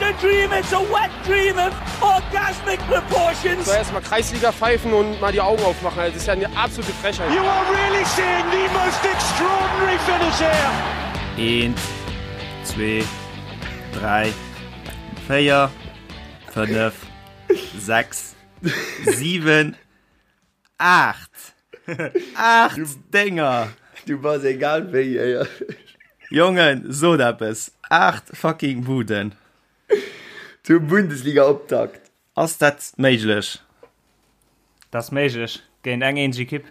a dream, it's a wet dream of orgasmic proportions. So erstmal Kreisliga pfeifen und mal die Augen aufmachen. Also, das ist ja eine absolute Frechheit. You are really seeing the most extraordinary finish here. Eent, zwee, dräi, véier, fënnef, sechs, siwen, 8! 8 Dénger! Du bass egal wéi éierlech. Jongen, sot eppes! 8 fucking Buden! Zum Bundesliga-Optakt! Ass dat méiglech? Dat ass méiglech, géint eng eenzeg Ekipp.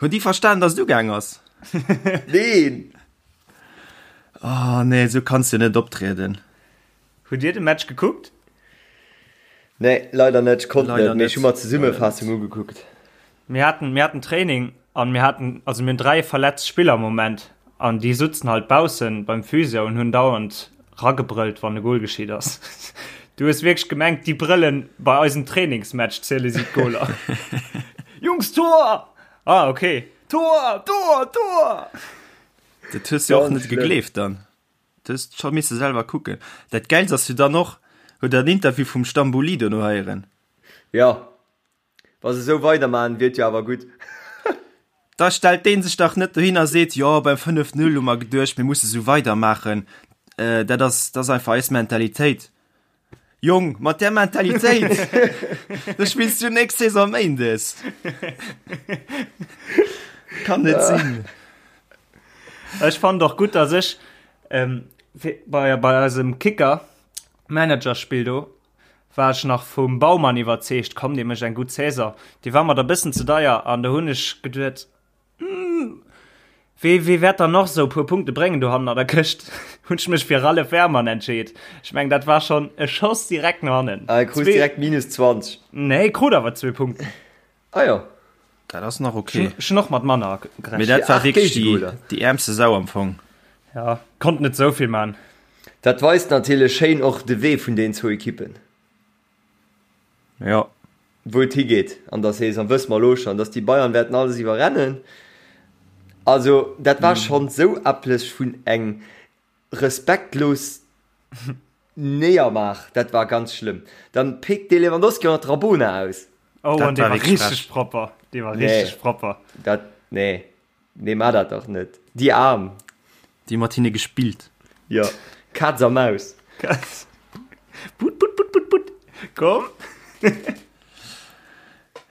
Hunn déi verstan, dass et ugaang ass? Neen! Oh nee, esou kanns de net optrieden. Hutt Dir de Match gekuckt? Nee, leider net. Ech konnt Leider net, mee ech net. hu mer d'Zesummefaassung ugekuckt. Mir haten, mir haten Training an mir haten, also mir hunn 3 verletzt Spiller am Moment an déi sutzen halt baussen beim Physio und hunn dauernd ragebrëllt, wann e Goal geschitt ass. Du hues wierklech gemengt, déi brëllen bei eisem Trainingsmatch ziele si d'Goaler. Jungs, Tor! Ah, okay. Tor! Tor! Tor! Dat hues du och Ganz net schlëmm. gegleeft dann. Du hues scho misse selwer kucken. Dat Gäilst ass jo dann och, huet der den Interview vum Stambouli dono heieren? Jo, wa se esou weidermachen, wier et jo awer gutt. Da stellt dee sech dach net dohin a seet, jo beim 5, 0 hu mer geduecht, mir musse sou weidermaachen, dat ass, dat ass einfach eis Mentalitéit. Jong, mat där Mentalitéit, da spills du nächst Saison méindes. Kann net sinn. Ech fand och gutt, dass ech ähm, bei, bei eisem Kicker Managerspill do war ech nach vum Baumann iwwerzeegt, komm, dee mécht eng gutt Saison. Dee war mer da bëssen ze deier an do hunn ech geduet, hm, wee, wee wäert dann noch sou puer Punkte bréngen do hannen an der Këscht? Hunn ech mech fir Ralph Wehrmann entscheet. Ech meng, dat war schonn e Schoss direkt no hannen. Ah, e krut direkt minus 20. Nee, krut awer zwee Punkten. Ah jo. Dat ass nach okay. Ech hunn och mat manner gerechent. Mee dat war wierklech déi, déi äermste Sau am Fong. Ja, konnt net esou vill man. Dat weist natierlech schéin och de Wee vun den zwou Ekippen. Jo. Wou et higeet an der Saison, wësse mer elo schonn, dass déi Bayern wäerten alles iwwerrennen. Also dat war schonn esou epples vun eng Respektlos Néiermaach, dat war ganz schlëmm. Dann péckt dee Lewandowski och nach d'Rabona aus. Oh, Dat an dee war war wierklech richteg frech. propper. Dee war Nee, richteg propper. dat, nee, nee, maa dat dach net. Déi Aarm. Déi mat hinne gespillt. Jo, Kaz a Maus. Kaz. Put, put, put, put, put. Komm.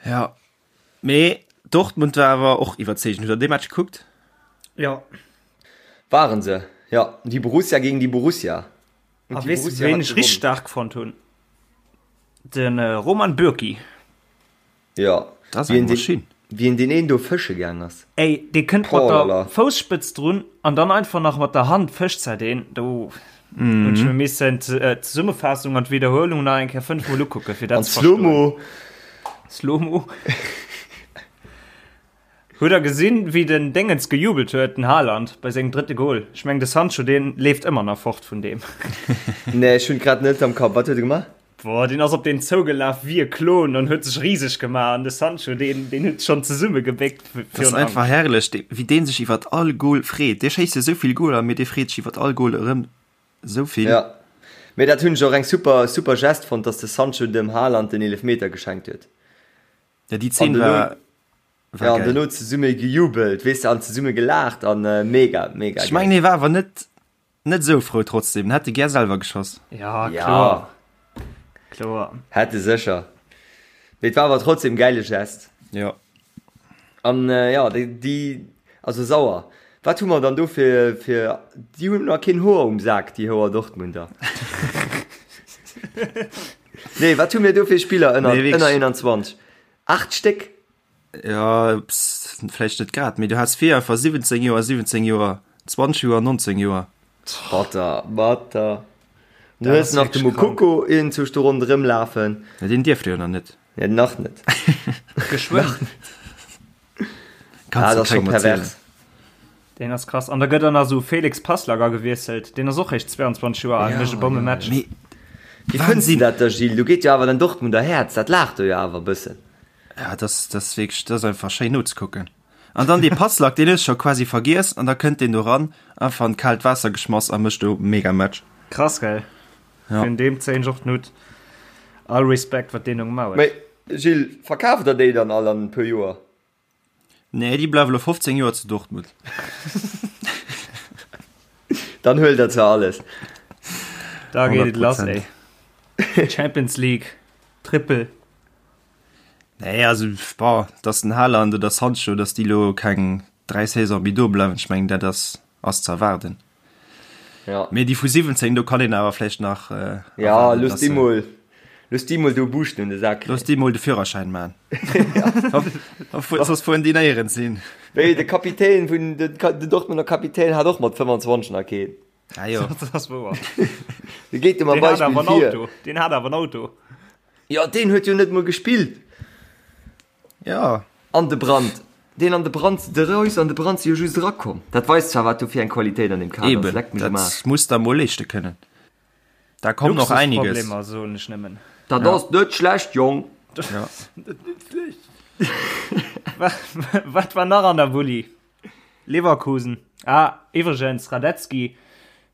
Ja, Mee Dortmund war awer och iwwerzeegend. Hutt der dee Match gekuckt? Jo. Waren se, jo. Déi Borussia géint déi Borussia. A weess de ween ech richteg staark fonnt hunn? De Roman Bürki. Jo. Dat ass eng Maschinn. Wéi en deen een do fësche gaang ass. Ey, dee kënnt mat der Fousspëtz drun an dann einfach nach mat der Hand fëscht se deen. Do hunn ech mir missen d'Zesummefaassung an d'Wiederhuelung nach eng Kéier 5 mol ukucken, fir dat ze verstoen. An Slomo. Slomo. Hutt der gesinn, wéi den Déngens gejubelt huet, den Haaland, bei sengem drëtte Gol? Ech mengen, de Sancho, deen leeft ëmmer nach fort vun deem. Nee, ech hunn et grad net am Kapp. Wat huet e gemaach? Boah, deen ass op deen zougelaf wéi e Klon an huet sech riseg gemaach. An de Sancho, deen, deen huet schonn zesummegebéckt Dat ass virun einfach Angscht. herrlech, dee, wéi dee sech iwwert all Gol freet. Dee schéisst jo esou vill Goler, mee dee freet sech iwwert all Gol erëm esou vill. Ja, mee dat hunn ech och eng super, super Geste fonnt, dass de Sancho dem Haaland den Eelefmeter geschenkt huet. Ja, déi An Zeen dono, war, war ja, an geil. dono zesumme gejubelt, weess de, an zesumme gelaacht an mega, mega Ech mengen, geil. hie war awer net, net esou frou trotzdem. En hätt e gär selwer geschoss. Ja, Ja. kloer. Kloer. Hätt e sécher. Mee et war awer trotzdem gäile Gest. Jo. An jo, déi, déi, also sauer. Wat hu mer dann do fir, fir, déi hunn nach keen Hoer um Sak, déi Hoer Dortmunder. Nee, wat hu mir do fir Spiller ënner, Nee, wierklech. ënner 21? 8 Stéck? Ja, pss, vläicht net grad, mee du has vir einfach 17 Joer, 17 Joer, 20 Joer, 19 Joer. Batter, batter. Du Dat hues ass nach de wierklech krank. Moukoko iergendzwousch do ronderëm lafen. Ja, deen dierft jo nach net. Ja, nach net. Geschwënn. Kannst Ah, du dat ass scho kengem erzielen. pervers. Deen ass krass. An da gëtt dann nach esou Felix Passlack agewiesselt. Deen ass och réischt 22 Joer al, mécht e Bommematch. Mee Wéi fënns du dat da, Gilles? Do geet jo awer den Dortmunder Häerz, dat laacht do jo awer e bëssen. Ja, dat ass, dat ass wierklech, dat ass einfach schéin nozekucken. An dann dee Passlack, deen hues du scho quasi vergiess an da kënnt deen do ran, einfach an d'kaalt Waasser geschmass a mécht do Megamatch. Krass, gell? Ja. Vun deem zéien ech och den Hutt. All Respekt, wat deen do gemaach huet. Mee Gilles, verkaaft der déi dann all an e puer Joer? Nee, déi bleiwe lo 15 Joer zu Dortmund. Dann huelt der zwar alles. Da geet et lass, ey. Champions League, Triple. Nee, also, boah, dass den Haaland oder Sancho, dass déi lo keng 3 Saison méi do bleiwen, ech mengen, dat ass, ass ze erwaarden. Ja. Mee déi vu 17, do kann een awer vläicht nach äh, Ja, looss déi mol, looss déi mol do Buuschten un de Sak kréien. Looss déi mol de Führerschäin man. Soss fueren déi néierens hin. Wéi de Kapitän vun, den, den Dortmunder Kapitän hat och mat 25 nach keen. Ah jo. Dat ass wouer. Dee geet jo mam Deen hat Beispill awer en vir. Auto. Deen hat awer en Auto. Jo, deen huet jo net mol gespillt. Ja. An de Brandt. Deen an de Brandt, de Reus an de Brandt si jo just erakomm. Dat weist zwar, wat do fir eng Qualitéit an deem Kader ass. Eben, Leckt mech am Aarsch. dat muss der mol leeschte kënnen. Da kommt noch einiges. Luxusproblemer, soen ech nëmmen. Dat ass net schlecht, Jong. Ja. Wat war nach an der Bulli? Leverkusen. Ah, iwwregens, Radetzky,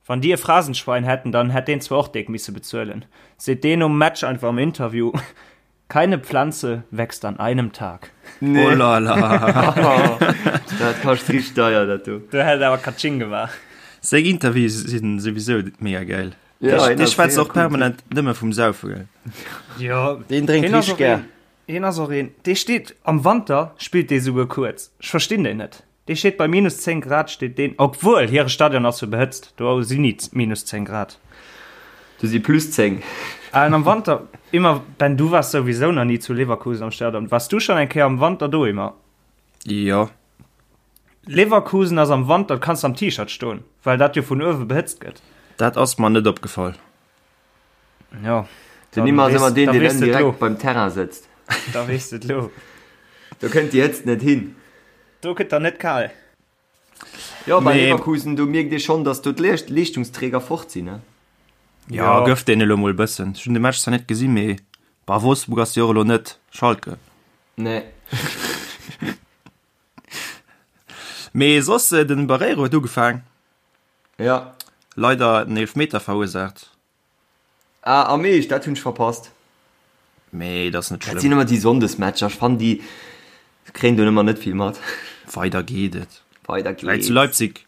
wann déi e Phrasenschwein hätten, dann hätt deen zwar och déck misse bezuelen. Seet deen nom Match einfach am Interview. Keine Pflanze wächst an einem Tag. Nee. Oh la la. Dat kascht richteg deier, dat do. Do hätt et awer Katsching gemaach. Seng Interviews sinn souwisou mega geil. Ja, Dee hien dee ass schwätzt mega och cool permanent nëmme vum Saufe, gell? Jo, Deen drénkt hien ass richteg och gär. een, hien ass och een, dee steet am Wanter, spillt dee souguer kuerz. Ech verstinn deen net. Dee steet bei minus 10 Grad steet deen, obwuel hire Stadion ass jo behëtzt, do sinn ni minus 10 Grad. Do si plus 10. An am Wanter, immer, Ben du waars souwisou nach ni zu Leverkusen am Stadion, waars du schonn eng Kéier am Wanter do, Immer? Jo. Leverkusen ass am Wanter, kanns am T-Shirt stoen, well dat jo vun uewe behëtzt gëtt. Dat ass mer net opgefall. Jo. Den Immer ass ëmmer deen, deen ënnen direkt beim Terrain sëtzt. Da weess de et lo. Do kënnt déi Hëtzt net hin. Do gëtt der net kal. Jo, bei Mee- Leverkusen, do mierkt ee schonn, datt do d'Leeschtungsträger fort sinn, ne? Ja, gëff deene elo mol e bëssen. Ech hunn de Match zwar net gesinn, mee bah, Wolfsburg ass jo och elo net Schalke. Nee. Mee soss, den Barreiro huet ugefaang. Ja. Leider en Eelfmeter verursaacht. Ah, am Eescht? Dat hunn ech verpasst. Mee dat ass net Dat sinn schlëmm. ëmmer déi Sonndesmatcher. Ech fannen déi kréien do ëmmer net vill mat. Weider geet et. Weider Vläit zu geht's. Leipzig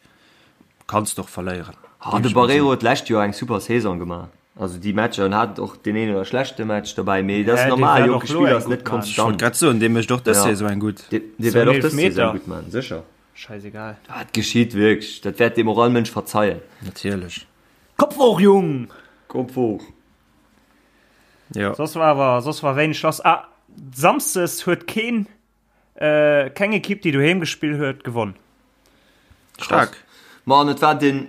kanns de och verléieren. Ah, de Barreiro huet d'lescht Joer eng super Saison gemaach. Also déi Matcher, en hat och deen een oder schlechte Match dobäi, mee dat ass Hä, dee normal, wäert jonke och lo Spiller eng ass net gutt man. Ech wollt konstant. grad soen, dee mécht och dës Ja. Saison eng gutt. Dee, dee Sou wäert en och dës Saison Eelfmeter. gutt man, sécher. Scheißegal. Dat geschitt wierklech, dat wäert deem och all Mënsch verzeien. Natierlech. Kopf hoch, Jung! Kopf hoch! Jo. Soss war awer, soss war wéineg lass. Ah, Samsdes huet keen, äh, keng Ekipp, déi doheem gespill huet, gewonn. Staark. Ma an et war den,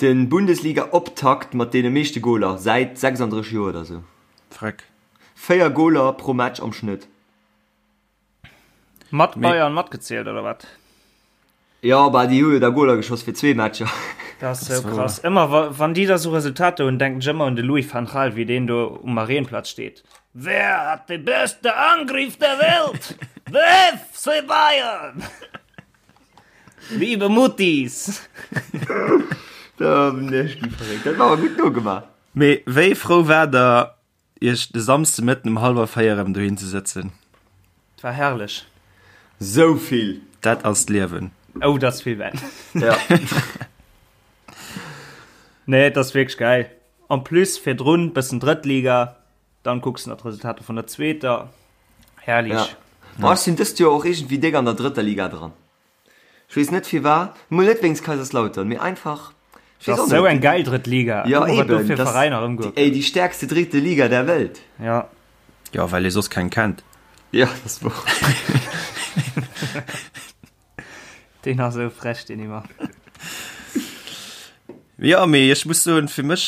den Bundesliga-Optakt mat deene meeschte Goler säit 36 Joer oder sou. Freck. 4 Goler pro Match am Schnëtt. Mat Bayern matgezielt oder wat? Jo, bah déi hu jo da Goler geschoss fir zwee Matcher. Dat ass sou krass. Ëmmer wa wann déi da sou Resultater hunn, denken ech ëmmer un de Louis van Gaal, wéi deen do um Marienplatz steet. Wer hat de beste Angriff der Welt? De FC Bayern! Liebe Muttis! Da bin ech gi verréckt. Dat war awer gutt nogemaach. Mee wéi frou war der Iech de Samsdemëtten um hallwer 4 erëm dohin ze sëtzen. Et war herrlech. Sou vill! Dat ass d'Liewen. Oh, dat ass vill, Ben. Ja. Nee, et ass wierklech gäil. En plus virdrun bëssen Drëttliga, dann kucks de nach d'Resultater vun der zweeter. Herrlich. Ja. Ma ech sinn dëst Joer och iergendwéi déck an der drëtter Liga dran. Ech weess net firwat, mol net wéinst Kaiserslautern, mee einfach, ech weess Das och ass sou net. eng geil drëtt Liga. Ja Guck mol, wat do eben, fir das Veräiner déi, ëmgoe ey, déi stärkste dritte Liga der Welt. Ja. Jo, well ee soss keng kennt. Ja, dat ass wouer. Deen ass sou frech, deen Ymer. Jo, mee ech muss soen, fir mech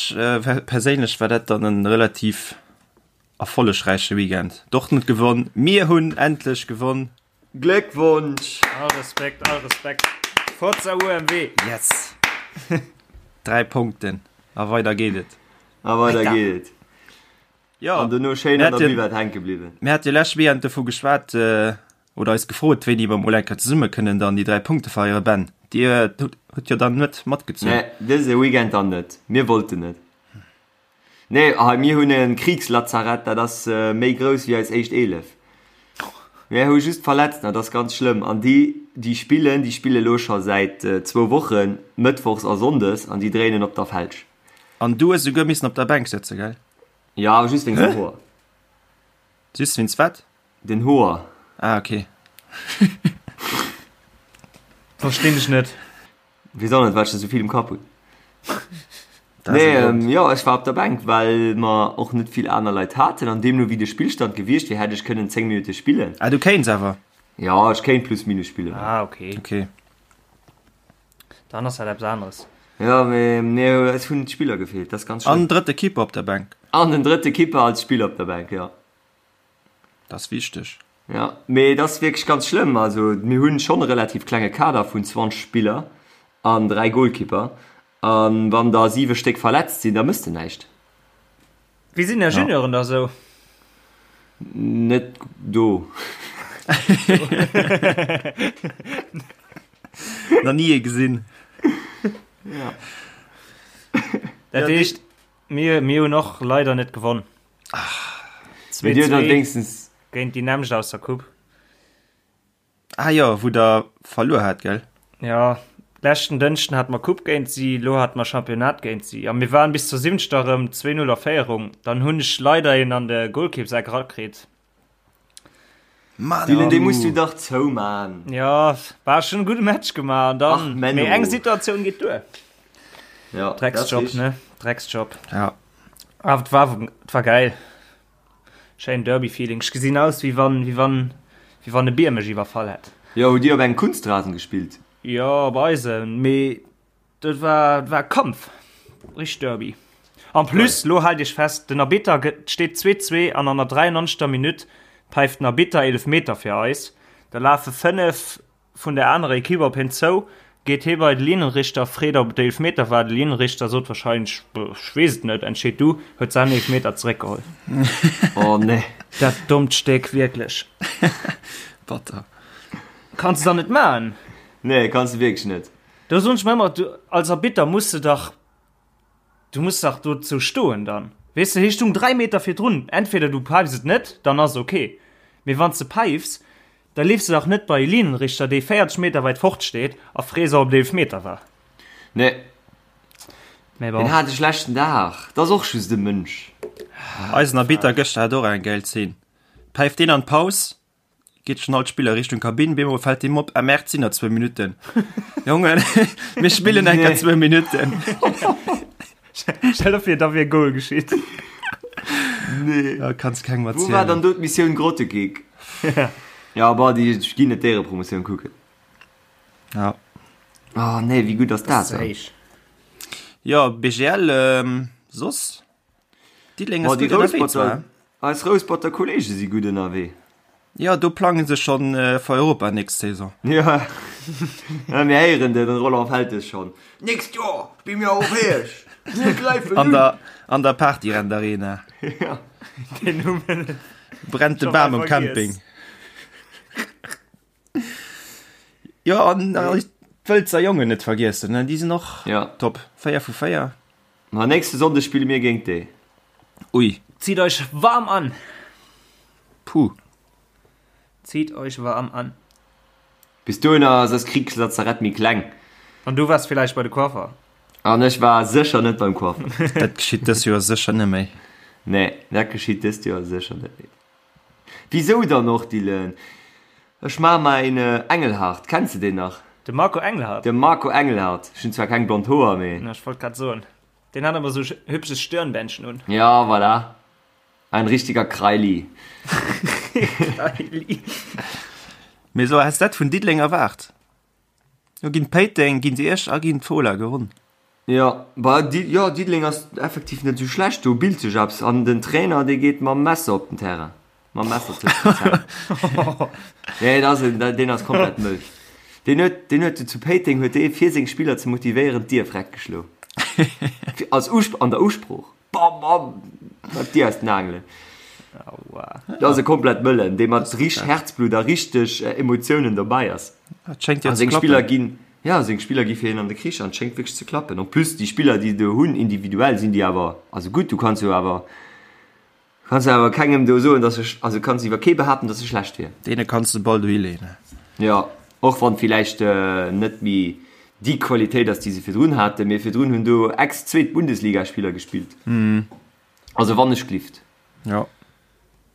perséinlech war dat dann e relativ erfollegräiche Weekend. Dortmund gewonn, mir hunn endlech gewonn. Gléckwonsch! All Respekt, all Respekt. Forza UMW! Yes! 3 Punkten a weider geet et. A weider geet et. Jo, An dono schéin an der Buvette hänke bliwwen. Mir hate jo lescht Weekend dovu geschwat, oder eis gefrot, wéini mer mol eng Kéier zesumme kënnen dann déi 3 Punkte feieren. Ben, Dir hutt jo dann net matgezunn. Nee, dëse Weekend dann net. Mir wollten net. Nee, hei mir hunn e Kriegslazarett, dat ass méi grouss wéi eis éischt 11. Mir hu just Verletzten, dat ass ganz schlëmm. An déi, déi spillen, déi spille lo scho säit zwou Wochen, mëttwochs a sonndes, an déi dréinen op der Felsch. An du hues esouguer missen op der Bänk sëtzen, gell? Jo, awer just wéinst den Hoer. Just wéinst wat? Den Hoer. Ah, okay. Verstinn ech net. Weess och net, wat ech da sou vill um Kapp hunn. Nee, ähm, jo, ech war op der Bänk, well mer och net vill aner Leit haten an deemno wéi de Spillstand gewiescht wier, hätt ech kënnen 10 Minutte spillen. Ah, du kéints awer? Jo, ech kéint plus minus spillen. Ah, okay. Okay. Dann ass dat eppes aneres. Jo, mee nee, es hunn d'Spiller gefeelt, dat ass ganz schlëmm. An den drëtte Keeper op der Bänk. An den drëtte Keeper als Spiller op der Bänk, jo. Dat ass wichteg. Jo, mee et ass wierklech ganz schlëmm. Also mir hunn schonn e relativ klenge Kader vun 20 Spiller an 3 Golkipper. A wann der 7 Stéck verletzt sinn, da mëss de näischt. Wéi sinn är Junioren da sou? Net do. Nach ni ee gesinn. Ja. Dat heescht, mir, mir hunn och leider net gewonn. Mee dir hutt dann wéinstens. Géint déi nämmlecht aus der Coupe. Ah jo, wou der verluer hat, gell? Jo, leschten Dënschden hate mer Coupe géint si, elo hate mer Championnat géint si. A mir waren bis zur siwenzter erëm 2, 0 a Féierung. Dann hunn ech leider een an de Golkippseck erakritt. Mann, Dylan, dee muss du dach zouman. Jo, war schon e gudde Match gemaach an dann, Ach, Menno. mee eng Situatioun geet duer. Ja, dat ass Drecksjob, richtig. ne? Drecksjob. Ja. Awer et war, et war geil. Schéin Derby-Feeling. Ech gesinn aus, wéi wann, wéi wann, wéi wann e Bier mech iwwerfall hätt. Jo, hutt Dir op engem Kunstrasen gespillt? Jo, op eisem, mee dat war, dat war Kampf. Richteg Derby. En plus, lo haalt Iech fest, den Arbitter gëtt, et steet 2, 2 an an der 93. Minutt päift den Arbitter Eelefmeter fir eis. Da lafe 5 Vun der anerer Equipe op hien zou, geet hie bei de Linienrichter, freet ob et Eelefmeter war. De Linienrichter sot wahrscheinlech, Ech weess et net, entscheet du, huet säin Eelefmeter zeréckgeholl. Oh nee. Dat dommt Stéck, wierklech. Batter. Kanns de dann net maachen. Nee, kanns de wierklech net. Do soen ech mer ëmmer, du als Arbitter muss de dach, du muss dach dozou stoen dann. Weess de, hie stung 3 Meter virdrun, entweder du päifs et net, dann ass et ok, mee wann s de päifs, Da leefs de dach net bei e Linienrichter, dee 40 Meter weit fort steet, a frees, ob et Eelefmeter war. Nee. Mee bon. Deen hat e schlechten Dag. Dat ass och just e Mënsch. Eisen Arbitter gëschter hat och eng gäil Zeen. Päift deen an d'Paus, geet schon all d'Spiller Richtung Kabinn, bemol fält deem op, ah merde, sinn nach zwou Minutten. Jongen, mir spillen enker zwou Minutten. Stell der vir, da wier e Goal geschitt. Nee. Ja, kanns kengem Wou war erzielen. dann do d'Missioun Grottekick? Ja, bah, déi ginn net d'Éierepromotioun kucken. Ja. Oh nee, wéi gutt ass dat dann? Héich. Ja, BGL, ähm, soss? Diddeleng Boah, ass déi gutt ënnerwee Rousperter, zwar. eis Rousperter Kollege si gutt ënnerwee. Ja, do plangen se schon äh, fir Europa nächst Saison. Ja, ja mir héieren den Roland Feltes schon. Nächst Joer spille mir europäesch. Mir gräifen An un. der, an der Partyrent Arena. Ja. Den hu mir net. Brennt de Schon Bam mal um vergiess. Camping. Ja, an äh, d'Wëlzer Jongen net vergiessen, ne? Déi sinn och Ja. top. 4 vu 4. Ma nächste Sonndeg spille mir géint déi. Ui. Zitt euch warm an! Puh. Zitt euch warm an! Bis dohinner ass eist Kriegslazarett méi kleng. An du waars villäicht bei de Coiffer? An ech war sécher net beim Coiffer. Dat geschitt dës Joer sécher net méi. Nee, dat geschitt dëst Joer sécher net méi. Wisou dann och, Dylan? Ech maache mer een Engelhardt. Kenns de deen nach? De Marco Engelhardt? De Marco Engelhardt. Ech hunn zwar keng blond Hoer, mee. Ech wollt grad soen, deen hat ëmmer sou hübsches Stirnbändchen un. Ja, voilà. Ein richtiger Kreili. Kreili. Mee sou häss dat vun Diddeleng erwaart. Jo ginn Péiteng, ginn Esch a ginn d'Fola gewonn. Jo, bah, Di, jo, Diddeleng ass effektiv net esou schlecht, do bilt sech eppes an den Trainer, dee geet mam Messer op den Terrain, mam Messer tëscht den Zänn. Nee, dat ass en, deen ass komplett mëll. Deen huet, deen huet zu Péiteng huet dee fir seng Spiller ze motivéieren d'Dier freck geschlo. Als Usp, an der Usprooch. Bam, bam, mat d'Dier aus den Aangelen. Aua. Dat ass e komplett mëllen, dee mat richteg Herzblut a richteg Emotiounen dobäi ass. Dat schéngt jo A ze seng Spiller klappen. ginn. Jo, seng Spiller gi fir hien an de Krich an et schéngt wierklech ze klappen. En plus déi Spiller déi se do hunn, individuell sinn déi awer, also gutt, du kanns jo awer, kanns jo awer kengem do soen, datt se, also kanns iwwer kee behaapten, datt se schlecht wier. Deene kanns de Ball dohi leeën. Jo, och wann villäicht net méi déi Qualitéit ass déi se virdrun haten, mee virdrun hunn do Ex-Zweet-Bundesliga-Spiller gespillt. Also wann ech glift. Jo.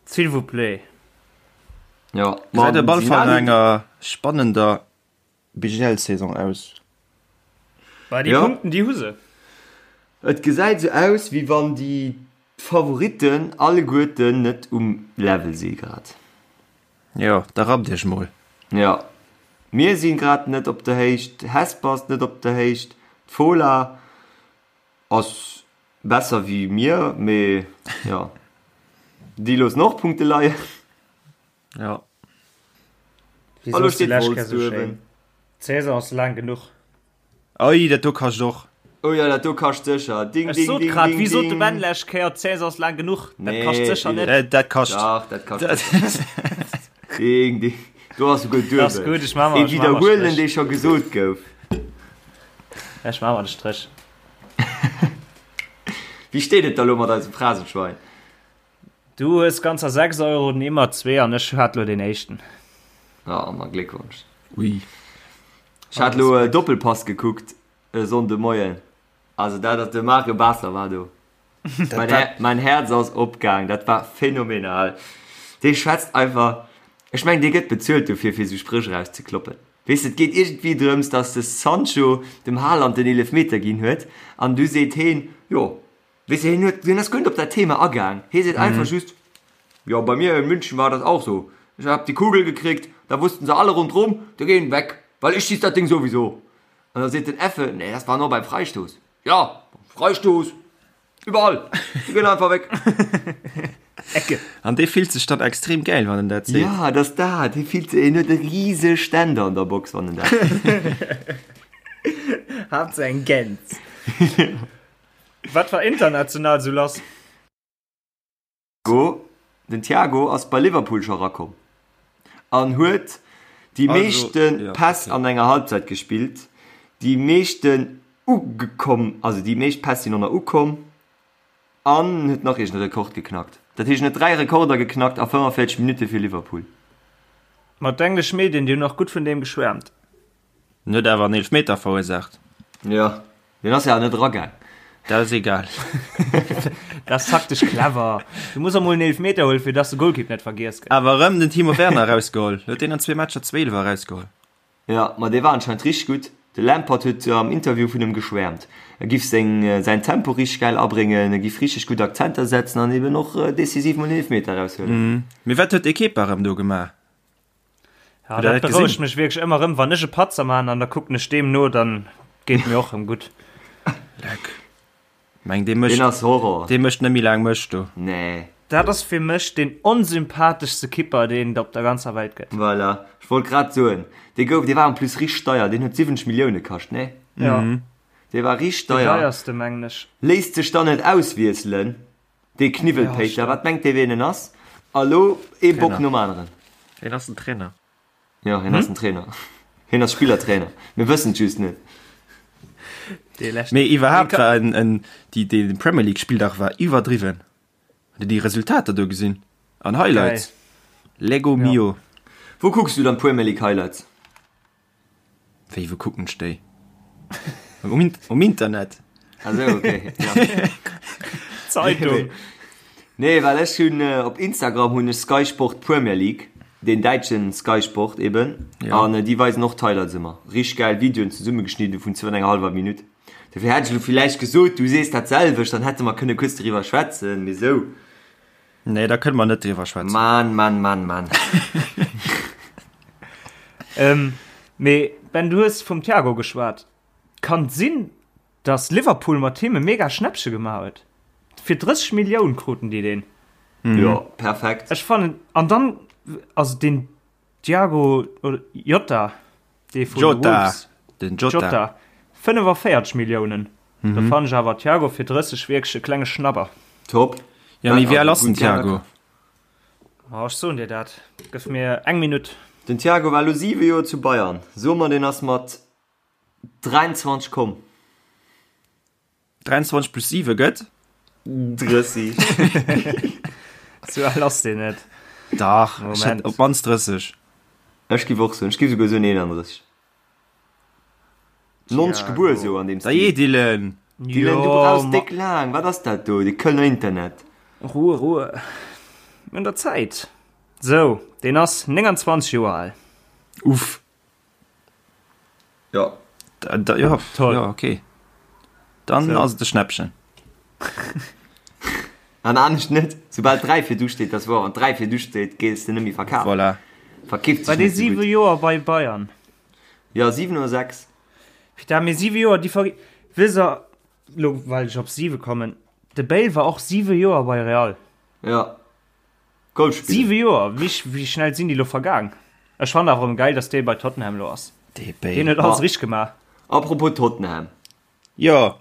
S'il vous plaît. Jo, Gesäit op alle Fall no enger spannender BGL-Saison aus. Bah, déi Punkten, déi hu se. Et gesäit esou aus, wéi wann déi Favoritten alleguerten net um Level si grad. Jo, da rappt iech mol. Jo, mir si grad net op der Héicht, Hesper ass net op der Héicht, d'Fola ass besser wéi mir, mee jo, déi loossen och Punkte leien. Jo. Wéi Hallo soos de steet lescht Wolz Kéier sou do schéin. uewen. D'Saison ass laang genuch. Oi, dat do kascht och. Oh jo, dat do kascht sécher. Ding, Ech ding, sot ding, grad, ding, wéi sot de ding. Ben lescht Kéier, d'Saison ass laang genuch. Dat Nee, kascht sécher net. Dat, dat kascht. Dach, dat kascht sécher. Ding, ding. Do ass souguer Dat ass duebel. gutt, ech maache mer, Ee ech maache mer Widderhuelen, Stréch. dee scho gesot gouf. Ech maache mer de Stréch. Wéi steet et da lo mat eisem Phrasenschwein? Du hues ganzer 6 Euro, den Immer zwee an ech hat lo den éischten. Ah, ma Gléckwonsch. Ui. Ech hat lo e Doppelpass gekuckt e Sonnde Moien. Also dat ass, de Mario Basler war do. Mein, Her mein Herz ass opgaang, dat war phänomenal. Dee schwätzt einfach, ech mengen dee gëtt bezuelt dofir fir esou Spréch erauszekloppen. Weess de, et geet iergendwéi drëms, datt de Sancho dem Haaland den Eelefmeter ginn huet an du seet heen, jo, Weess de, hien huet, hien ass guer net op dat Thema agaang. Hie seet einfach just, Jo, bei mir in München war das auch so. Ich hab die Kugel gekriegt, da wussten se alle rundrum, die gehen weg, weil ich schieß dat Ding sowieso. An da seet den Effe, Nee, das war nur beim Freistoß. Ja, Freistoß, überall, die gehen einfach weg. Ecke. An dee fillt sech dann extrem gäil, wann en dat seet. Ja, dat ass dat. Hie fillt sech, hien huet e rise Ständer an der Box, wann en dat seet. Haaptsaach eng Gäns. Wat war international sou lass? Go, Den Thiago ass bei Liverpool scho rakomm an huet déi meeschte Päss an enger Halbzeit gespillt, déi meeschten ugekomm, also déi meescht Päss sinn och nach ukomm an huet nach iergend e Rekord geknackt. Dat heescht en huet 3 Rekorder geknackt a 45 Minutte fir Liverpool. Ma d'englesch Medien, déi hunn och gutt vun deem geschwäermt. En huet awer en Eelefmeter verursaacht. Jo, deen ass jo awer net eragaang. Dat ass egal. Dat ass taktesch clever. Du muss emol en Eelefmeter huelen, fir dass de Golkipp net vergiess gëtt. Awer erëm den Timo Werner erausgeholl. Huet deen an zwee Matcher zwee Eelwer erausgeholl. Jo, ma dee war anscheinend richteg gutt. De Lampard huet am Interview vun em geschwäermt. E giff seng, säin Tempo richteg gäil abréngen, e giff richteg gutt Akzenter setzen an eben och decisiv mol en Eelefmeter eraushuelen. Mee wat huet de Kepa erëm do gemaach? Ja, dat berouegt mech wierklech ëmmer rëm, wann ech e Patzer man an da kucken ech deem no, dann geet mir och rëm gutt. Leck. Meng dee mécht Deen ass Horror. Dee mécht net méi laang Mëscht do. Nee. Dat ass fir mech deen onsympatheschste Kipper deen et op der ganzer Welt gëtt. Voilà, ech wollt grad soen, dee gouf, dee war en plus richteg deier, deen huet 70 Millioune kascht, nee? Ja. Dee war richteg Deen deier. deierste mengen ech. Léisst sech dann net auswiesselen. Dee Kniwwelpéiter, wat mengt dee ween en ass? A lo ee Bock nom aneren. Hien ass den Trainer. Jo, hien ass den Trainer. Hien ass Spillertrainer. Mir wëssen et just net. Mee iwwerhaapt war en, en, déi, dee Premier League Spilldag war iwwerdriwwen. Hutt Dir déi Resultater do gesinn? An Highlights? Lego mio. Wou kucks du dann d'Premier League Highlights? Wéi, wou kucken ech déi? Um, um Internet. Ah sou, okay. Ja. Zeitung. Nee, well ech hunn äh, op Instagram hunn ech Sky Sport Premier League, den däitschen Sky Sport eben. Ja. An äh, déi weisen och d'Highlights ëmmer. Richteg gäil Videoen zesummegeschnidden vun zwou an enger hallwer Minutt. Dofir hätt ech elo villäicht gesot, du sees dat selwecht, dann hätte mer kënne kuerz doriwwer schwätzen, mee sou. Nee, da kënne mer net driwwer schwätzen. Mann, Mann, Mann, Mann. ähm, mee Ben, du hues vum Thiago geschwat. Kann et sinn, dass Liverpool mat him e mega Schnäppche gemaach huet? Fir 30 Millioun kruten déi deen. Mhm. Jo, perfekt. Ech fannen, an dann, also den Thiago oder Jota, dee vun Jota, Wolves. Den Jota. Jota. 45 Milliounen. Mhm. Da fannen ech awer Thiago fir 30 wierklech e klenge Schnapper. Top. Ja, mee wéi al ass den Thiago? Oh, ech soen dir dat. Gëff mir eng Minutt. Den Thiago war elo 7 Joer zu Bayern. So mer, deen ass mat. 23 komm. 23 plus 7 gëtt? 30. Sou al ass deen net. Dach, ech hätt op d'mannst 30. Ech giff och soen, ech giff souguer soen 31. 90 gebuer, sou an deem Stil. Dajee Dylan! Dylan, du brauchs déck laang, wat ass dat do, de Kölner Internet? Ruhe, Ruhe. Mir hunn der Zäit. Sou, deen ass 29 Joer al. Uff. Jo. Da, da, ja, Toll. Ja, okay. Dann So. ass et e Schnäppchen. An anescht net. Soubal 3 virdu steet, dat ass wouer, wann 3 virdu steet, gees de net méi verkafen. Voilà. Verkeeft War sech dee net sou 7 gutt. Joer bei Bayern? Jo, 7 oder 6. Putain, mee 7 Joer, déi ver... Wësst der, lo well ech op 7 kommen, de Bale war och 7 Joer bei Real. Ja. Golf spillen. 7 Joer, wéi, wéi schnell sinn déi lo vergaang? Ech fannen awer erëm geil, dass dee bei Tottenham lo ass. Dee Deen huet Bale. alles richteg gemaach. Apropos Tottenham. Jo,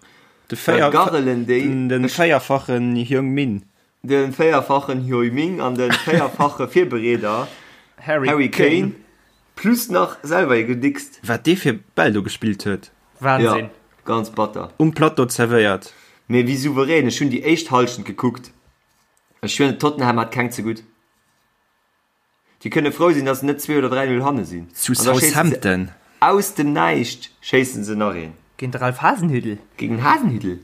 de Wat véier, garrelen déi? den, den Ech. véierfachen Heung-Min. De véierfachen Heung-Min an de véierfache Virbereeder Harry Harry Kane. Kane plus nach selwer ee gedickst. Wat dee fir Bäll do gespillt huet. Wahnsinn. Jo, ganz batter. Um Plateau zerwéiert. Mee wéi souverän, ech hunn déi éischt Hallschent gekuckt. Ech schwieren, Tottenham hat keng ze gutt. Déi kënne frou sinn, datt se net 2 oder 3, 0 hanne sinn. Zu An da schéissen se Southampton. aus dem Näischt schéissen se nach een. Géint de Ralph Hasenhüttl. Géint den Hasenhüttl?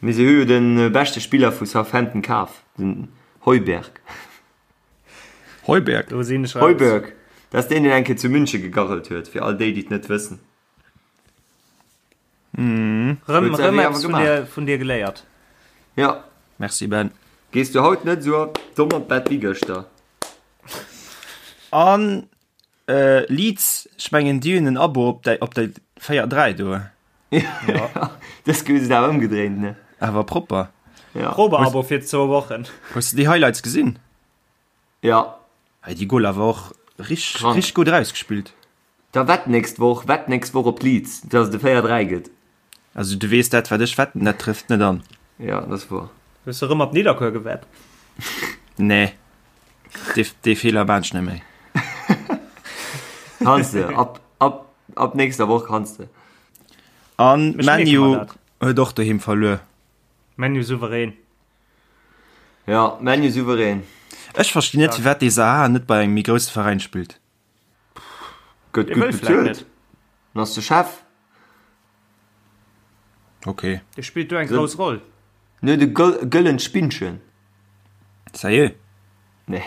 Mee se hu jo de beschte Spiller vu Southampton kaf, den Højbjerg. Højbjerg? Do sinn ech raus. Højbjerg, dat ass deen, deen eng Kéier zu München gegarrelt huet, fir all déi, déi et net wëssen. Rëm, Huet se rëm awer eppes vun gemaach. dir, vun dir geléiert. Ja. Merci Ben. Gees du haut net esou domm an d'Bett wéi gëschter? An Leeds, ech mengen déi hunn en Abo op déi, op déi 4, 3 do. Ja. Dës Kéier hu se et awer ëmgedréint, ne? Awer propper. Ja. Probeabo fir zwou Wochen. Hues de déi Highlights gesinn? Ja. Hey, déi Goaler war och richteg, Krank. richteg gutt erausgespillt. Da wett nächst Woch, wett nächst Woch op Leeds, dass et e 4, 3 gëtt. Also du weess, dat wat ech wetten, dat trëfft net an. Ja, dat ass woer. Hues de rëm op Nidderkuer gewett? Nee, dee, dee Feeler maan ech net méi. Kanns de, ab, ab, ab nächster Woch kanns de. An Ech Man mierke U mer dat. huet och doheem verluer. Man U souverän. Ja, Man U souverän. Ech verstinn net, firwat dee Zaha net bei engem méi grousse Veräin spillt. Gëtt Dee gutt wëll vläicht bezuelt. net. En ass de Chef. Ok. Dee spillt do eng grouss Roll. En huet e gëllent Spinnchen. Sérieux? Nee.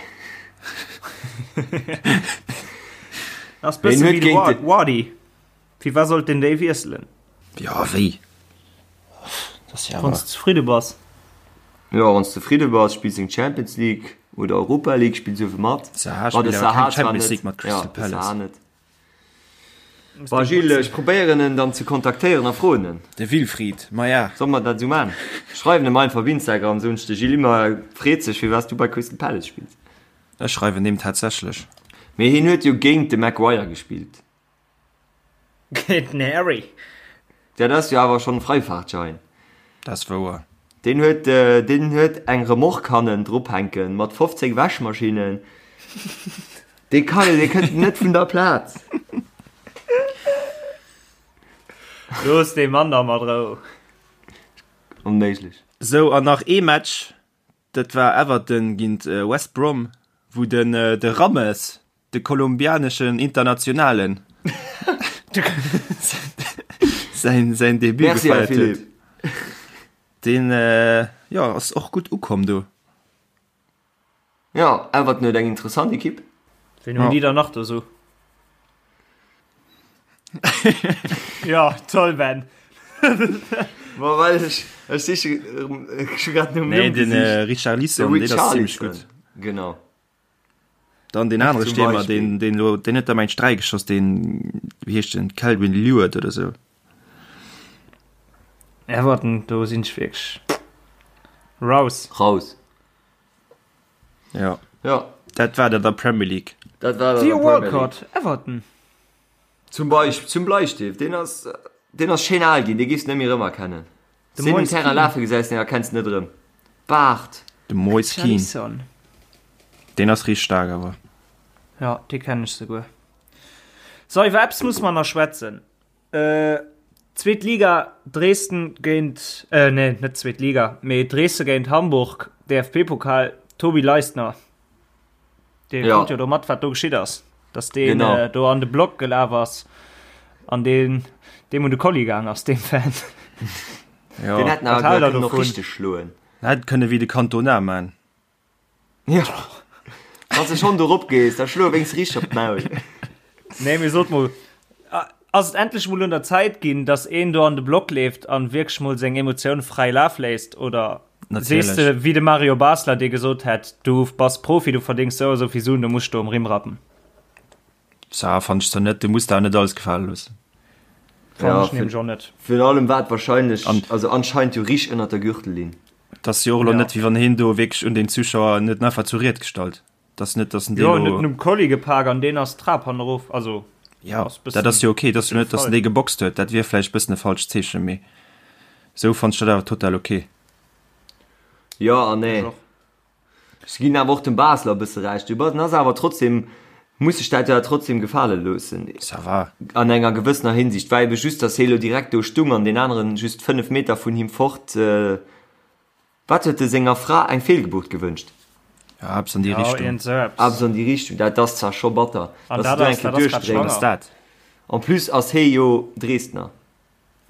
Ass bësse Hien wéi huet de géint de. Wardy. Fir wat sollt den déi wiesselen? Jo, wéi? Dat ass jo Wann awer. s de zefridde bass. Jo, wann s zefridde bass, spills eng Champions League oder Europa League, spills uewe mat. Zaha Ma de spillt awer Zaha keng zwar Champions net. League mat Ja, Crystal de Palace. Zaha net. Bon, Gilles, ech probéieren en dann ze kontaktéieren a froen en. De Wilfried, maja. Solle mer dat esou man? Schreiwen em einfach op Instagram, soen ech, de Gilles Immer freet sech, firwat s du bei Crystal Palace spills. Ech schreiwen deem tatsächlech. Mee hien huet jo géint de Maguire gespillt. Géint den Harry. Dat ass jo awer schonn e Freifahrtschein. Dat ass wouer. Deen huet, deen huet eng Remorque hannen drop hänken mat 15 Wäschmaschinnen. Dee kann, dee kënnt net vun der Plaz. Looss dee Mann da mat Rou. Onméiglech. Sou, an nach ee Match, dat war Everton géint West Brom, wou den de Rames De kolumbianeschen Internationalen säin, säin Debut Merci, Här gefeiert huet. Philippe. Deen äh, jo, ass och gutt ukomm do. Ja, Everton huet eng interessant Ekipp. Wien hunn déi dann nach do sou? Ja, toll Ben. Ma well ech, ech siche, ech hu grad nom Nee, Numm den gesicht. äh, Richarlison, De deen ass zimmlech Richarlison. gutt. Genau. Dann den anere Zum Stiermer, Beispiel. den, den lo, den huet der mengt 3 geschoss, den, wéi heescht den, Calvin Leward oder sou. Everton, do sinn ech wierklech raus. Raus. Ja. Ja. Dat war dat der Premier League. Dat war dat Theo der Premier League. Walcott, Everton. Zum Beispill, zum Bleistift, deen ass, deen ass schéin al ginn, dee giffs net méi erëmerkennen. De Sinn um Moise Terrain Kean. lafe gesäis, deen erkenns de net erëm. Baart. De Moise Kean. Richarlison. Deen ass richteg staark awer. Ja, dee kennen ech souguer. So, iwwer eppes musse mer nach schwätzen. Zweet Liga, Dresden géint, nee, net zweet Liga, mee Dresden géint Hamburg, DFB-Pokal, Tobi Leistner. Dee ja. krut jo do mat, wat do geschitt ass. Dass deen genau. äh, do an de Block gelaf ass an deen deem un de Kolli gaang ass, deem Fan. Ja. Den hätten awer kënnen noch richteg schloen. Hätt kënne wéi de Cantona man. Ja. Wann du schon dorop gees, da schlo wéinst richteg op d'Maul. Nee, mee sot mol, ass et endlech mol un der Zäit ginn, dass een do an de Block leeft an wierklech mol seng Emotioun fräi Laf léisst oder sees de wéi de Mario Basler, dee gesot hätt, du bass Profi, du verdéngs sou a sou vill Suen, du muss do um Rimm rappen? Ça fannt ech zwar net, du muss der net alles gefale loossen. Fannen ech nämlech och net. Virun allem war et wahrscheinlech, also anscheinend jo richteg ënnert der Gürtellinn. Et ass jo och elo net, wéi wann heen do wierklech un den Zuschauer, en huet en einfach zur Ried gestallt. Et ass net, datt en dee elo. Jo, en huet en um Kolli gepak an deen ass d'Trap hannerof, also. Jo, dat ass jo ok. Et ass jo net, datt en dee geboxt huet, dat wier vläicht e bëssen e falscht Zeechen, mee esou fannt ech dat awer total ok. Jo an nee. Ech ginn awer och dem Basler e bësse Recht. Du bass, en ass awer trotzdem, muss sech dat jo awer trotzdem gefale loossen. Ça va. An enger gewëssener Hinsicht. War ebe just, datt hie lo direkt do stung an deen aneren just 5 Meter vun him fort. Wat huet e senger Fra eng Feelgebuert gewënscht? Ja, eppes an déi Richtung. Ja, iergend sou eppes. Eppes an déi Richtung. Dat ass zwar scho batter, An datt dat de do ass, eng Kéier dat ass grad duerchdréins. schwanger. Ass dat? En plus ass hie jo Dresdner.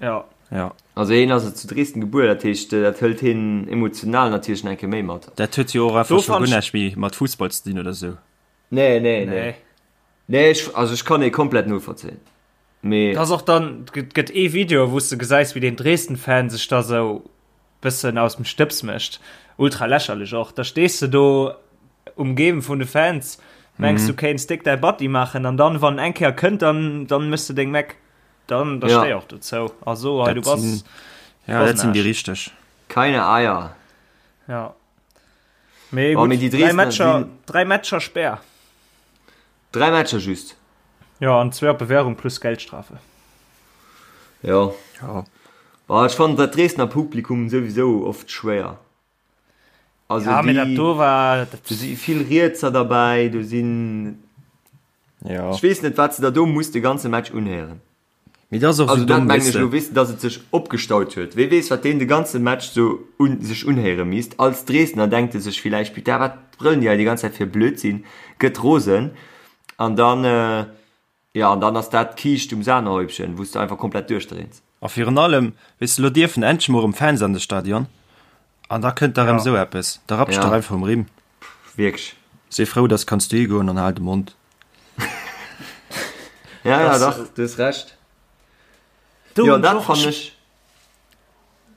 Ja. Ja. Also hien ass zu Dresden gebuer, dat heescht dat hëlt hien emotional natierlech nach eng Kéier méi mat. Dat huet jo och einfach scho guer näischt méi mat Fussball ze dinn oder sou. Nee, nee, nee. Nee, ech, also ech kann hie komplett novollzéien. Mee. Dat ass och dann, et gëtt ee Video, wou s de gesäis, wéi deen Dresden-Fan sech da sou bëssen aus dem Stëbs mécht. Ultra lächerlech och. Da stees de do umgeben vun de Fans, mengs du kéints déck däi Batti maachen an dann, wann eng Kéier kënnt, dann, dann méchs de deng Meck. Dann da Ja. stéi och dozou. Also hei, Dat du bass, sinn, du ja, bass dat en sinn déi Aarsch. richteg. Keine Eier. Ja. Mee Oh, gutt, mee déi dräi Dresdner Matcher, sinn- dräi Matcher Spär. Dräi Matcher just. Ja, an zwee op Bewährung plus Geldstrafe. Jo. Ja. Boah, ech fannen dat Dresdner Publikum souwisou oft schwéier. Also Ja, mee dat déi, do war, dat, do si vill Rietser derbäi, do sinn, Ja. ech weess net, wat se der do muss de ganze Match unhéieren. Mee dat ass och Also sou dat domm, mengen weess ech de. elo, weess de, datt et sech opgestaut huet. Wee weess, wat deen de ganze Match sou un sech unhéiere misst. Als Dresdner denkt e sech villäicht, Putain, wat brëllen déi hei déi ganz Zäit fir Blödsinn, gëtt rosen an dann, jo, an dann ass dat d'Kiischt um Sahnehäubchen, wou s de einfach komplett duerchdréins. A virun allem, weess de, lo dierfen endlech mol erëm Fans an de Stadion an da kënnt da erëm Ja. esou eppes. Da rappsch Ja. dach einfach um Rimm. Wierklech. Si frou, dass kanns du higoen an hal de Mond. Ja, ja, Das- dach, du hues Recht. Do Jo, hunn dat ech och fannen ech.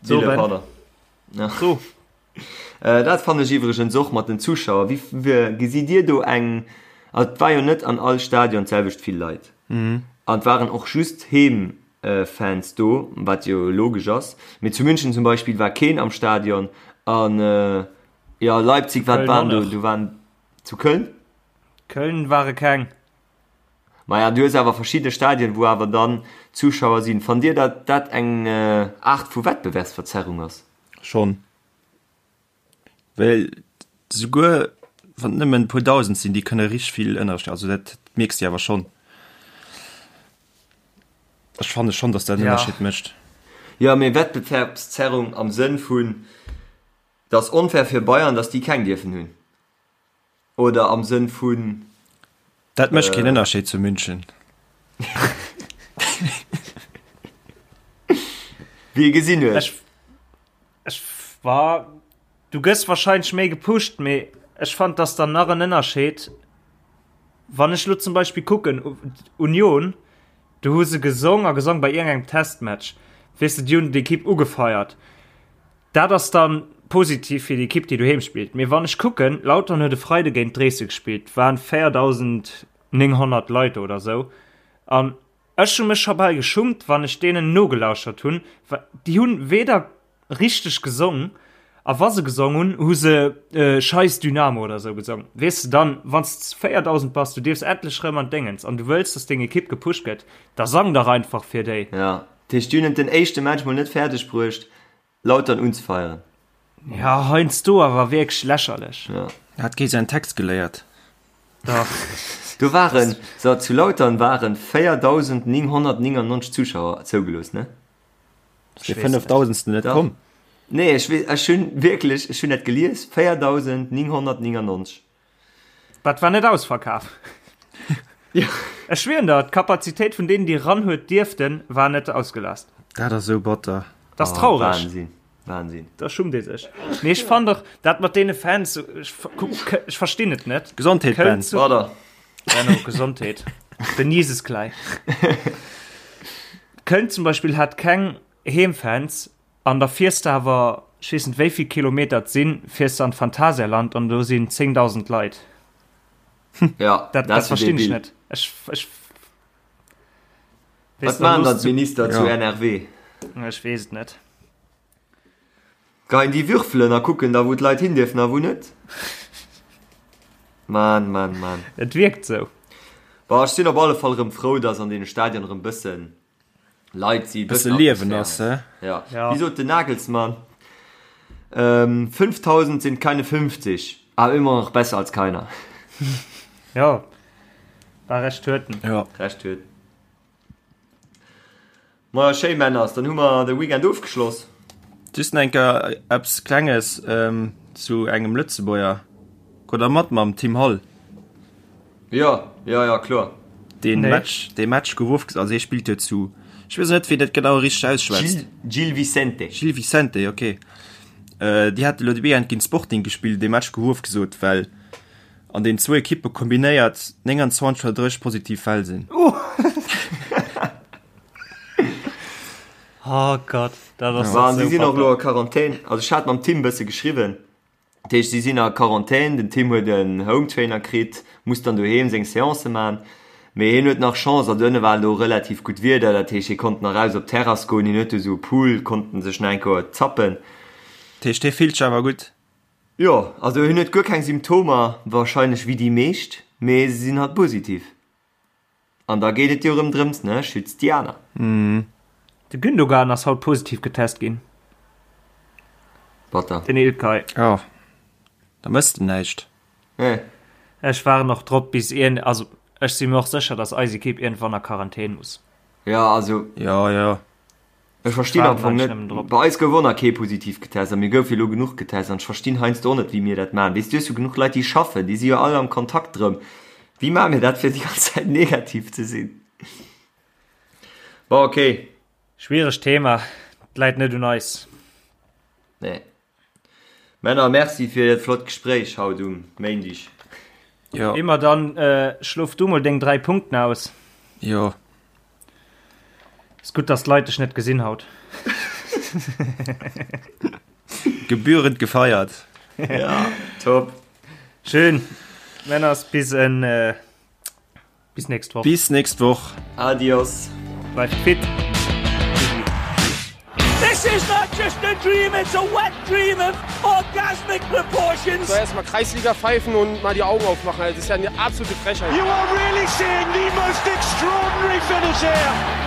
So, Wille, Ben. pardon. Ja. So. Äh, dat fannen ech iwwregens och mat den Zuschauer. Wéi, wéi gesitt Dir do eng, also et war jo net an all Stadion d'selwecht vill Leit. An et waren och just Heemfans do, wat jo logesch ass. Mee zu München zum Beispill war keen am Stadion. An jo, Leipzig, wat Köln waren och do? net. Do waren zu Köln? Köln ware keng. Maja, du hues awer verschidde Stadien, wou awer dann Zuschauer sinn. Fannt Dir, datt dat eng Aart vu Wettbewerbsverzerrung ass? Schonn. Well souguer wann et nëmmen e puer Dausend sinn, déi kënne richteg vill Ënnerscheed, also dat mierks de awer schonn. Ech fanne schonn, datt dat en Ja. Ënnerscheed mécht. Jo, mee Wettbewerbszerrung am Sënn vun, et ass onfair fir Bayern, datt déi keng dierfen hunn, oder am Sënn vun. Dat mécht keen Ënnerscheed zu München. Wéi ee gesinn huet. Ech, ech war, du gëss wahrscheinlech méi gepusht, mee ech fand dass dann nach en Ënnerscheed, wann ech lo zum Beispill kucken, Union, do hu se gesong a gesong bei iergendengem Testmatch, weess de, déi hunn d'Ekipp ugefeiert. Dat ass dann positiv fir déi Ekipp, déi doheem spillt. Mee wann ech kucken, Lautern huet e Freide géint Dresden gespillt, waren 4.900 Leit do oder sou, an ech hu mech scho bal geschummt, wann ech deenen nogelauschert hunn, well déi hunn weder richteg gesong, a wa se gesong hunn, hu se Scheiss Dynamo oder sou gesong. Weess de, dann, wann s de 4.000 bass, du dierfs endlech rëm an d'Déngens an du wëlls, dass deng Ekipp gepusht gëtt, da sang dach einfach fir déi. Ja, dat heescht, déi hunn et den éischte Match mol net fäerdeg bruecht, Lautern unzefeieren. Ja, heiansdo awer wierklech lächerlech. Ja. Hat kee säin Text geléiert? Dach. Do waren, so zu Lautern waren 4.999 Zuschauer zougelooss, ne? Ass dee 5.000. Net komm? Nee, ech weess, ech hunn wierklech, ech hunn dat gelies, 4.999. Dat war net ausverkaf. Ja. Ech schwieren der, d'Kapazitéit vun deenen, déi ran huet dierften, war net ausgelast. Dat ass esou batter. Dat ass traureg. Wahnsinn, Wahnsinn. Da schummt ee sech. Mee ech fannen och, dat mat deene Fans, ech, ech verstinn et net. Gesondheet, Köln Ben. zu, Brother. Benno, Gesondheet. Den Jesus gleich. Köln zum Beispill hat keng Heemfans an da fiers de awer, ech weess net wéi vill Kilometer et sinn, fiers de an d'Phantasialand an do sinn 10.000 Leit. Ja, Dat, dat verstinn ech net. Ech, ech, Wat maachen dann d'Minister zu NRW? Ech weess et net. Geien déi würfelen a kucken da wou d'Leit hin dierfen a wou net? Mann, Mann, Mann. Et wierkt sou. Bon, ech sinn op alle Fall erëm frou, dass an deene Stadionen erëm bëssen Leit si, bësse Liewen ass, he? Ja. ja. Wéi sot den Nagelsmann? Ähm, 5000 sind keine 50, aber immer noch besser als keiner. Ja, war recht huet en. Ja. Recht huet. Ma schéi Männers, dann hu mer de Weekend ofgeschloss. Just nach eng Kéier eppes Klenges ähm, zu engem Lëtzebuerger. Krut der mat mam Tim Hall? Jo, jo, jo, kloer. Deen Nee. Match, dee Match gouf ofges-, also hie spillt jo zu, ech weess net wéi dat genau richteg ausschwätzt. Gil, Gil Vicente. Gil Vicente, okay. Äh, déi hate lo de Weekend géint Sporting gespillt, dee Match gouf ofgesot, well an den zwou Ekippe kombinéiert 29 oder 30 positiv Fäll sinn. Oh Gott, dat ass An si sou sinn och elo batter. a Quarantän. Also ech hat mam Tim bësse geschriwwen. Dat heescht, si sinn a Quarantän. Den Tim huet en Hometrainer kritt, muss dann doheem seng Seancë man. Mee hien huet nach Chance, also ënne war elo relativ gutt Wieder, dat heescht, hie konnt nach raus op d'Terrass goen. Hien huet do esou e Pool, konnt en sech nach eng Kéier zappen. Dat heescht, hie fillt sech awer gutt? Jo, also hien huet guer keng Symptomer, warscheinlech wéi déi meescht, mee se sinn halt positiv. An da geet et jo erëm drëms, ne, schützt déi aner. De Gündogan ass haut positiv getest ginn. Batter. Den Ilkay. Jo, da mëss de näischt. Nee. Ech waarden och drop bis iergend, also ech si mir och sécher, dass eis Ekipp iergendwann a Quarantän muss. Jo, also. Jo, jo. Ech verstinn am Fong net, bei eis gouf och nach kee positiv getest a mir goufe jo elo genuch getest an ech verstinn heiansdo och net wéi mir dat maachen. Weess du hues jo genuch Leit déi schaffen, déi si jo all am Kontakt drëm. Wéi maache mir dat fir déi ganz Zäit negativ ze sinn? Bon ok. Schwieregt Thema, et läit net un eis. Nee. Männer, merci fir dat flott Gespréich haut um Méindig. Jo. Immer dann schlof du mol deng 3 Punkten aus. Jo. Ass gutt dass d'Leit dech net gesinn haut. Gebührend gefeiert. Ja, top. Schön. Männers bis en Bis nächst Woch. Bis nächst Woch. Adios. Bleift fit. This is not just a dream, it's a wet dream of orgasmic proportions. So erstmal Kreisliga pfeifen und mal die Augen aufmachen. Also, das ist ja eine absolute Frechheit. You are really seeing the most extraordinary finish here.